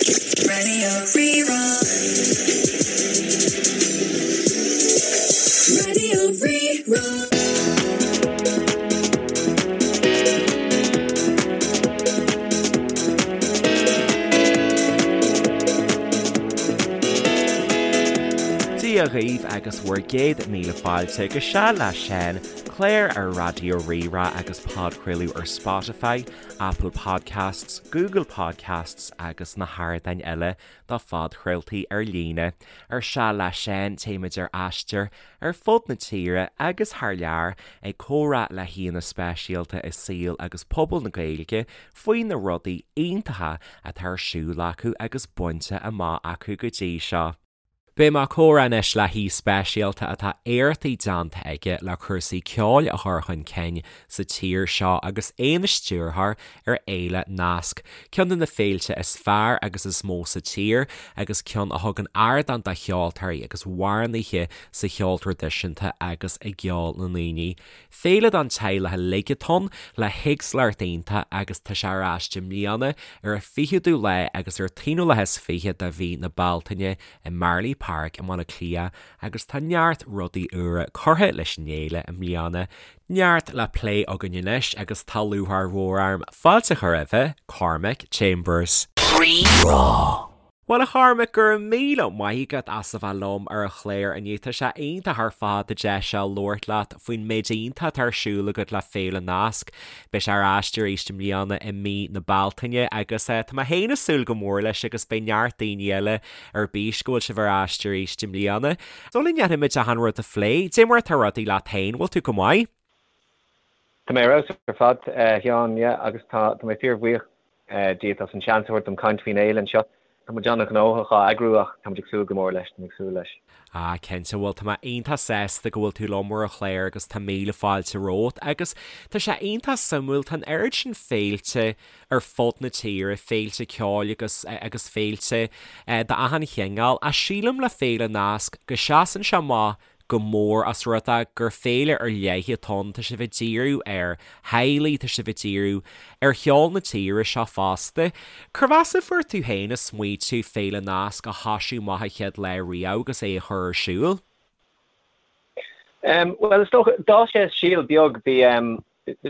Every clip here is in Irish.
Radio Rí-Rá. Radio Rí-Rá. Dia dhaoibh agus bhur gcéad míle fáilte go Seal le Seán, clár ar Raidió Rí-Rá agus podchraoladh ar Spotify, Apple Podcasts, Google Podcasts agus na hardáin eile do phodchraoltaí ar líne. Ar Seal le Seán, téimid ar aistear ar fud na tíre agus thar lear ag comhrá le haíonna speisialta i saol agus pobal na Gaeilge faoi na rudaí iontacha atá ar siúl acu agus bainte amach acu go dtí seo. Beidh mé ag comhrá anois le haoi speisialta atá éachtaí déanta aige le cúrsaí ceoil a chur chun cinn sa tír seo agus é ina stiúrthóir ar Fhéile Nasc, ceann de na féilte is fearr agus is mó sa tír agus ceann a thugann ardán do cheoltóirí agus amhránaithe sa cheol traidisiúnta agus i gceol na ndaoine. Féile don teaghlach uilig atá ann, le héagsúlacht iontach agus tá sé ar ais i mbliana ar an 20ú lá agus ar an t-aonú lá is fiche de mhí na Bealtaine i Marlay Park i mBaile Átha Cliath agus tá neart rudaí úra curtha leis an fhéile i mbliana. Neart le plé againn anois agus tá lúcháir mhór orm fáilte a chur roimhe, Cormac Chambers. Rí-Rá. Bhuel a Chormaic, go raibh míle maith agat as a bheith liom ar an chlár inniu. Tá sé iontach ar fad an deis seo labhairt leat faoin méid iontach atá ar siúl agat le Féile Nasc. Beidh sé ar ais arís i mbliana i mí na Bealtaine agus tá mé féin ag súil go mór leis agus beidh neart daoine eile ar bís go bhfuil sibh ar ais arís i mbliana. Sula ndéanfaimid achan rud a phlé, dé mar atá rudaí leat féin, bhfuil tú go maith? Tá mé ar fheabhas ar fad, a Sheáin, yeah, agus tá mé fíorbhuíoch díot as an seans a thabhairt dom caint faoin fhéile anseo. Tá muid an-ghnóthach á eagrú ach tá muid ag súil go mór leis, tá mé ag súil leis. Ah, cinnte, bhuel tá mé iontach sásta go bhfuil tú liom ar an chlár agus tá míle fáilte romhat agus tá sé iontach suimiúil, tá an oiread sin féilte ar fud na tíre, féilte ceoil agus agus féilte d'achan chineál ach sílim le Féile Nasc go seasann sé amach go mór as rud é gur féile ar leith atá ann, tá sibh ag díriú ar theaghlaigh, tá sibh ag díriú ar cheol na tíre seo fosta. Cérbh as a fuair tú féin an smaoitiú Féile Nasc a thoisiú amach an chéad lá riamh agus é a chur ar siúl? Bhuel, is dócha, d'fhás sé as síol beag, bhí,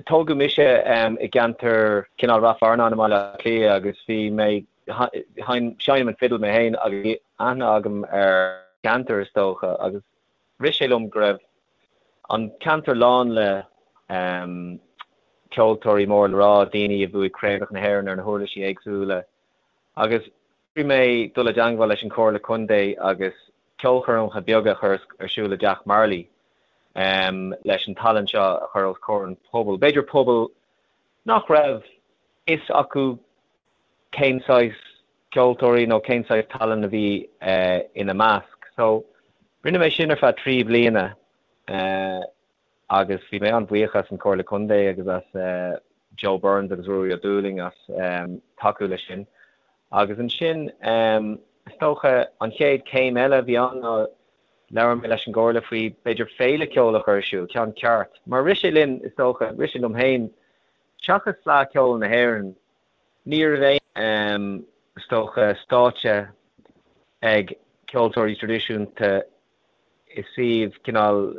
tógadh mise i gceantar cineál Rath Fearnáin i mBaile Átha Cliath agus bhí mé, seinnim an fidil mé féin agus bhí aithne agam ar cheantar is dócha agus rith sé liom go raibh an ceantar lán le ceoltóirí mór le rá, daoine a bhuaigh craobhacha na hÉireann ar na huirlisí éagsúla agus bhí mé dul i dteangmháil leis an Chomhairle Contae agus ceolchoirmeacha beaga a chur ar siúl i dTeach Marlay leis an tallann seo a chur os comhair an phobail. B'fhéidir pobal nach raibh fhios acu cén saghas ceoltóirí nó cén saghas tallann a bhí ina measc. So, rinne mé sin ar feadh 3 bliana agus bhí mé an-bhuíoch as an Chomhairle Contae agus as Joe Burns agus Ruairí Ó Dúlaing as tacú leis sin. Agus ansin, is dócha, an chéad chéim eile a bhí ann ná labhair mé leis an gComhairle faoi b'fhéidir féile ceoil a chur ar siúl, ceann ceart. Mar rith sé linn, is dócha, rith sé liom féin, seachas Fleadh Cheoil na hÉireann, Ní raibh aon, is dócha, stáitse ag ceoltóirí traidisiúnta i suíomh cineál,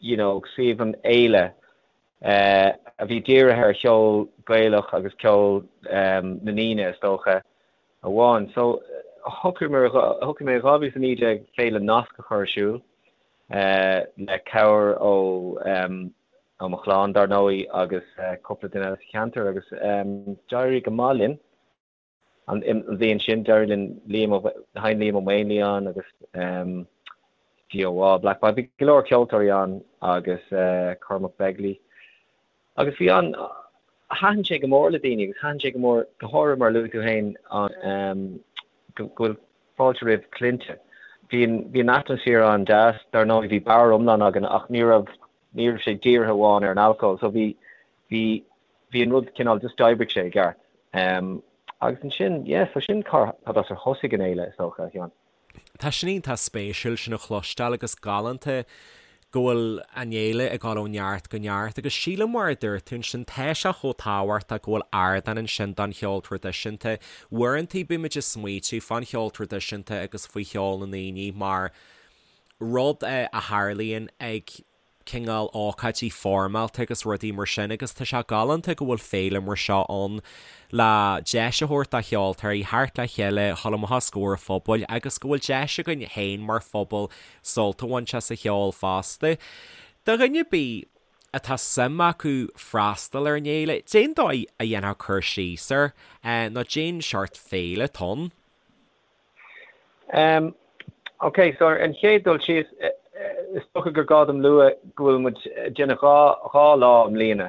you know, suíomh an fhéile a bhí dírithe ar cheol Gaelach agus ceol na ndaoine, is dócha, amháin. So, shocraigh mé, shocraigh mé in 2019 Féile Nasc a chur ar siúl le cabhair ó, ó mo chlann, dar ndóigh, agus cúpla duine eile sa cheantar agus d'éirigh go maith linn an bhliain sin. D'éirigh linn Liam Ó, sheinn Liam Ó Maonlaí ann agus GOA, Black Bobby, bhí go leor ceoltóirí ann agus Cormac Begley. Agus bhí an, thaitin sé go mór le daoine agus thaitin sé go mór, go háirithe mar a luaigh tú féin, an, go bhfuil fáilte roimh clainne. Bhí an, bhí an atmaisféar an-deas, dar ndóigh bhí beár iomlán againn ach ní raibh, ní raibh sé dírithe amháin ar an alcól so bhí, bhí, bhí an rud cineál just d'oibrigh sé i gceart. Agus ansin, yeah, so sin cad as ar thosaigh an fhéile is dócha, a Sheáin. Tá sin iontach spéisiúil sin a chloisteáil agus galánta. go bhfuil an fhéile ag dul ó neart go neart agus sílim mar a dúirt tú ansin tá sé chomh tábhachtach go bhfuil ardán ansin don cheol traidisiúnta. Uaireanta bímid ag smaoitiú fán cheol traidisiúnta agus faoi cheol na ndaoine mar rud a tharlaíonn ag cineál ócáidí foirmeálta agus rudaí mar sin agus tá sé galánta go bhfuil féile mar seo ann le deis a thabhairt do cheoltóirí theacht le chéile, dhul amach os comhair an phobail agus go bhfuil deis againn féin mar phobal sult a bhaint as an cheol fosta. Do dhuine ar bith atá suim acu freastal ar an fhéile, cén dóigh a dhéanfá cur síos air nó cén seort féile atá ann? Um, ok, so ar an chéad dul síos, is dócha gur gá dom lua go bhfuil muid ag déanamh 2 lá i mbliana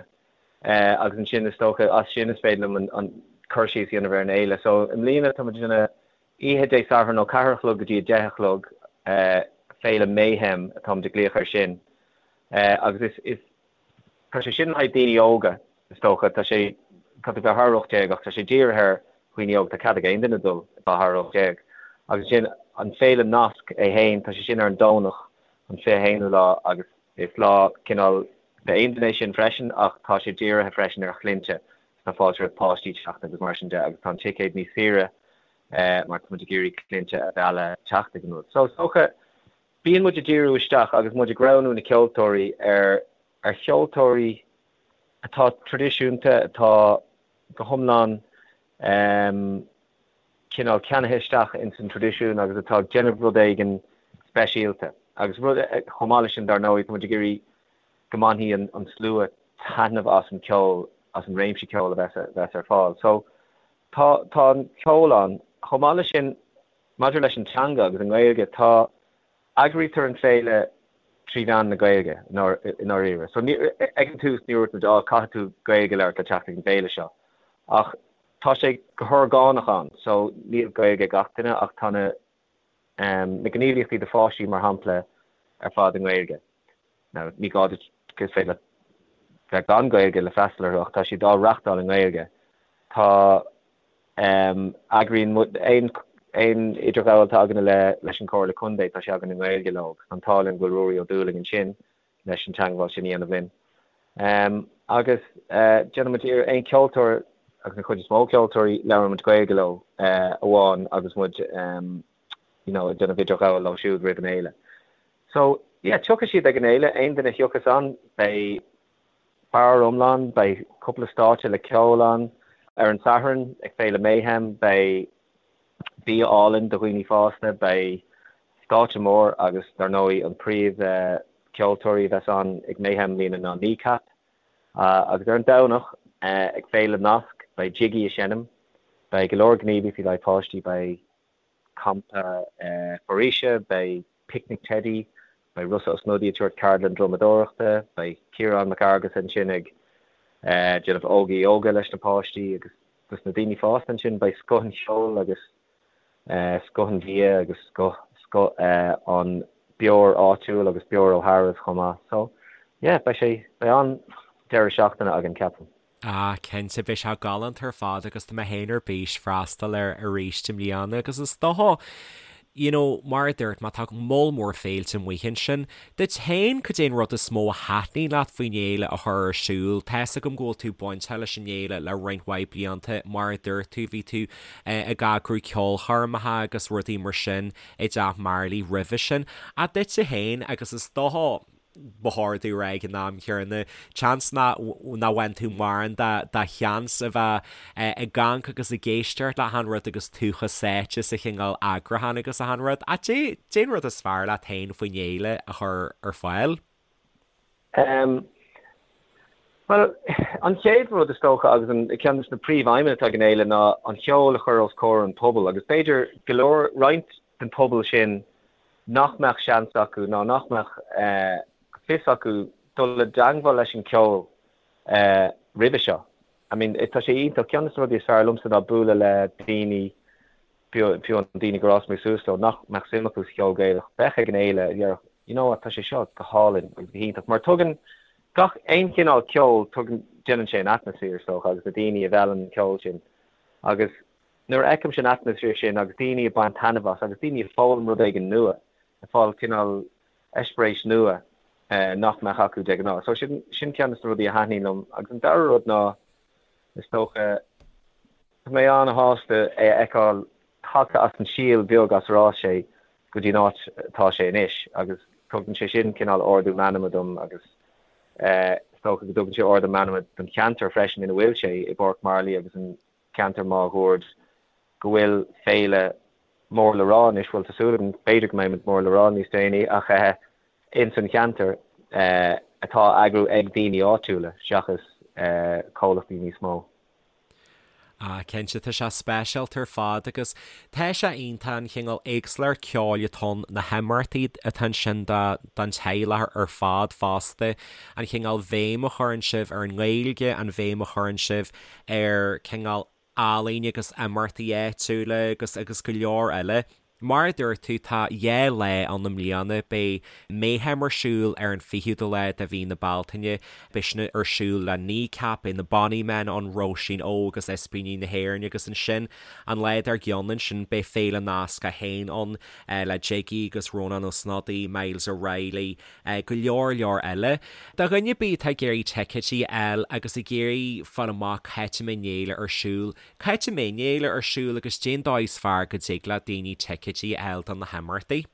agus ansin is dócha as sin is féidir liom an cur síos a dhéanamh ar an fhéile. So i mbliana tá muid ag déanamh oíche Dé Sathairn ó 4 a chlog go dtí 10 a chlog, Féile Mayhem atáimid ag glaoch air sin agus is, is, Tá sé sin le haghaidh daoine óga, is dócha. Tá sé, caithfidh tú bheith thar 18 ach tá sé dírithe ar dhaoine óga. Tá cead ag aon duine dul atá thar 18. Agus ansin an Féile Nasc é féin, tá sé sin ar an Domhnach, an 21ú lá agus is lá cineál d'aon duine é sin freisin ach tá sé dírithe freisin ar chlainnte. Tá fáilte roimh páistí teacht agus mar sin de agus tá an ticéad níos saoire mar tá muid ag iarraidh clainnte a mhealladh teacht ag an rud. So is dócha Bíonn muid ag díriú isteach agus muid ag roghnú na ceoltóirí ar ar cheoltóirí atá traidisiúnta, atá go hiomlán cineál ceannaithe isteach ins an traidisiún agus atá ag déanamh rud éigin speisialta. Agus rud, chomh maith leis sin dar ndóigh, tá muid ag iarraidh go mbainfidh an slua taitneamh as an ceol, as an réimse ceoil a bheas ar fáil. So tá tá an ceol ann. Chomh maith leis sin, Maidir leis an teanga agus an nGaeilge, tá, eagraítear an féile trí mheán na Gaeilge, i ndáiríre. So, ní, ag an tús ní dúirt muid, á, caithfidh tú Gaeilge a labhairt le teacht ag an bhféile seo. Ach tá sé go horgánach ann, so níl Gaeilge ag gach duine ach tá na, na gníomhaíochtaí do pháistí, mar shampla, ar fad i nGaeilge. Now, ní gá duit, is féidir leat bheith gan Gaeilge le freastal orthu ach tá siad á reachtáil i nGaeilge. Tá. Eagraíonn muid aon aon idirghabháil atá againne le leis an Chomhairle Contae, tá sé againn i nGaeilge leo agus tá an t-ádh linn go bhfuil Ruairí Ó Dúlaing ansin leis an teangmháil sin a dhéanamh linn. Agus déanann muid iarraidh aon cheoltóir agus an chuid is mó ceoltóirí labhrann muid Gaeilge leo amháin agus muid you know ag déanamh idirghabháil leo siúd roimh an fhéile. So yeah tiocfaidh siad ag an fhéile, aon duine a thiocfas ann beidh Beár iomlán, beidh cúpla stáitse le ceol ann. Ar an Satharn, ag Féile Mayhem, beidh bia álainn do dhaoine fásta, beidh stáitse mór agus dar ndóigh an príomh ceoltóirí a bheas ann ag Mayhem i mbliana ná Kneecap. Agus ar an Domhnach, ag Féile Nasc, beidh Jiggy ag seinm, beidh go leor gníomhaíochtaí le haghaidh páistí, beidh. campa foraoise, beidh Picnic Teidí, beidh Rossa Ó Snodaigh ag tabhairt ceardlann drumadóireachta, beidh Ciarán Mac Fhearghusa ansin ag déanamh Óga Yoga leis na páistí agus dos na daoine fásta ansin beidh scoth an cheoil agus scoth an bhia agus scoth scoth an beoir áitiúil agus beoir ó Tharbh chomh maith. So yeah, beidh sé, beidh an-deireadh seachtaine againn ceapaim. Ah, cinnte, beidh sé galánta ar fad agus tá mé féin ar bís freastal air arís i mbliana agus is dócha, you know, mar a dúirt mé, tá moll mór féilte amuigh ansin. Duit féin, cad é an rud is mó a thaitníonn leat faoin fhéile a chur ar siúl? Tá's agam go bhfuil tú bainteach leis an fhéile le roinnt mhaith blianta, mar a dúirt tú, bhí tú ag eagrú ceolchoirmeacha agus rudaí mar sin i dTeach Marley roimhe sin. Ach duitse féin, agus is dócha, ba chóir domh a rá ag an am chéanna, seans nach bhain tú mórán de sheans a bheith ag amharc agus ag éisteacht le achan rud agus tú chomh sáite sa chineál eagrúcháin agus achan rud. Ach cad é an rud is fearr leat féin faoin fhéile a chur ar fáil? Bhuel, an chéad rud is dócha agus an ceann de na príomhaidhmeanna atá ag an fhéile ná an cheol a chur os comhair an pobail agus b'fhéidir go leor, roinnt den pobal sin nach mbeadh seans acu ná nach mbeadh fios acu dul i dteangmháil leis an ceol roimhe seo. I mean, tá sé iontach, ceann de na rudaí is fearr liomsa ná bualadh le daoine, fiú an daoine gur fhás mé suas leo, nach mbeadh suim acu sa cheol Gaelach, bheadh ag an fhéile, a déarfadh, you know what, tá sé seo go hálainn agus go hiontach. Mar tugann gach aon chineál ceoil, tugann, déanann sé an atmaisféar, is dócha, agus na daoine a mheallann an ceol sin. Agus Nuair a fheicimse an atmaisféar sin agus daoine ag baint taitneamh as agus daoine ag foghlaim rud éigin nua, ag fáil cineál eispéireas nua. nach mbeadh acu de ghnáth. So sin sin ceann de na rudaí a thaitníonn liom. Agus an dara rud ná, is dócha, tá mé an-shásta é a fheiceáil tagtha as an síol beag as ar fhás sé go dtí an áit atá sé anois agus tugann sé sin cineál ardú meanma dom agus is dócha go dtugann sé ardú meanma don cheantar freisin ina bhfuil sé, i bPáirc Marlaí agus an ceantar máguaird, go bhfuil féile mór le rá anois, bhuel tá súil agam, b'fhéidir go mbeidh muid mór le rá níos déanaí ach ins an cheantar atá á eagrú ag daoine áitiúla seachas comhlachtaí níos mó. Ah, cinnte, tá sé speisialta ar fad agus tá sé iontach an chineál éagsúlacht ceoil atá ann, na himeachtaí atá ansin don teaghlach ar fad fosta, an chineál bhéim a chuireann sibh ar an nGaeilge, an bhéim a chuireann sibh ar cineál ealaín agus imeachtaí áitiúla agus agus go leor eile. Mar a dúirt tú, tá 2 lá ann i mbliana. Beidh Mayhem ar siúl ar an 20ú lá de mhí na Bealtaine. Beidh sin ar siúl le Kneecap, beidh na Bonny Men ann, Róisín Óg agus Ispíní na hÉireann agus ansin an lá dár gcionn ansin beidh Féile Nasc 1 ann le Jiggy agus Rónán Ó Snodaigh, Myles O'Reilly, go leor leor eile. Do dhuine ar bith atá ag iarraidh ticéidí a fháil agus ag iarraidh fáil amach cá háit a mbeidh an fhéile ar siúl, Cá háit a mbeidh an fhéile ar siúl agus cén dóigh is fearr go dtig le daoine ticéidí a fháil do na himeachtaí?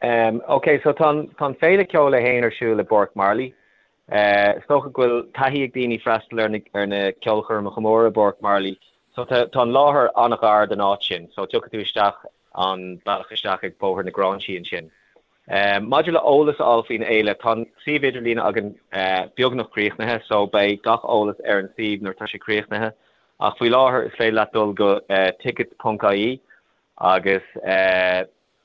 Em, ok, so tá an, tá an Féile Ceoil é féin ar siúl i bPáirc Marlaí. Eh, is dócha go bhfuil taithí ag daoine freastal ar na, ar na ceolchoirmeacha móra i bPáirc Marlaí. So tá, tá an láthair an-ghar don áit sin, so tiocfaidh tú isteach an bealach isteach ag Bóthar na Gráinsí ansin. Maidir le eolas a fháil faoin fhéile, tá an suíomh idirlín againn beagnach críochnaithe so beidh gach eolas ar an suíomh nuair atá sé críochnaithe ach faoi láthair is féidir leat dul go tickets ponc ie agus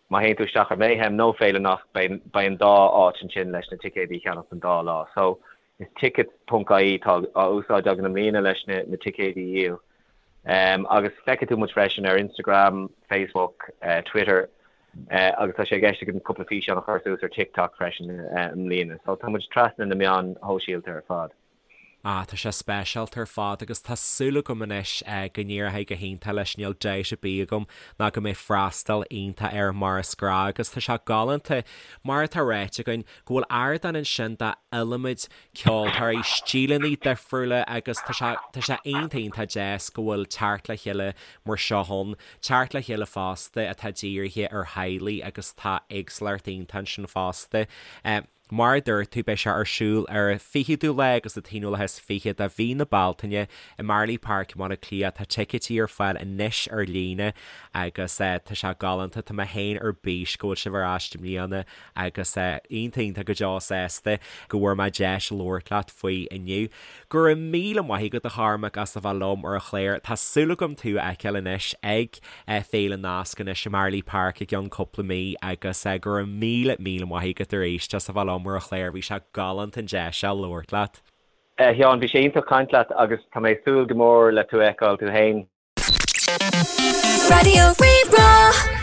má théann tú isteach ar Mayhem nó Féile Nasc beidh an dá áit ansin leis na ticéidí a cheannach don dá lá. So Is tickets ponc ie atá á úsáid againn i mbliana leis na ticéidí a dhíol. Agus feicfidh tú muid freisin ar Instagram, Facebook, Twitter agus tá sé i gceist againn cúpla físeán a chur suas ar TikTok freisin i mbliana. So tá muid trasna na meáin shóisialta ar fad. Ah, tá sé speisialta ar fad agus tá súil agam anois go n-éireoidh go hiontach leis, níl dabht ar bith agam ná go mbeidh freastal iontach air mar is gnách agus tá sé galánta, mar atá ráite againn, go bhfuil ardán ansin d'iliomad ceoltóirí, stíleanna difriúla agus tá sé, tá sé iontach iontach deas go bhfuil teacht le chéile mar seo ann, teacht le chéile fosta atá dírithe ar theaghlaigh agus tá éagsúlacht iontach ansin fosta. Mar a dúirt tú, beidh sé ar siúl ar an 20ú lá agus an t-aonú lá is 20 de mhí na Bealtaine i Marlay Park i mBaile Átha Cliath. Tá ticéidí ar fáil anois ar líne agus tá sé galánta. Tá mé féin ar bís go bhfuil sibh ar ais i mbliana agus iontach iontach go deo sásta go bhfuair mé deis labhairt leat faoi inniu. Go raibh míle maith agat a Chormaic as a bheith liom ar an chlár. Tá súil agam tú a fheiceáil anois ag Féile Nasc anois i Marlay Park i gceann cúpla mí agus go raibh míle míle maith agat arís as a bheith liom ar an chlár. Bhí sé galánta an deis seo labhairt leat. A Sheáin, bhí sé iontach caint leat agus tá mé ag súil go mór le tú a fheiceáil tú féin. Raidió Rí-Rá.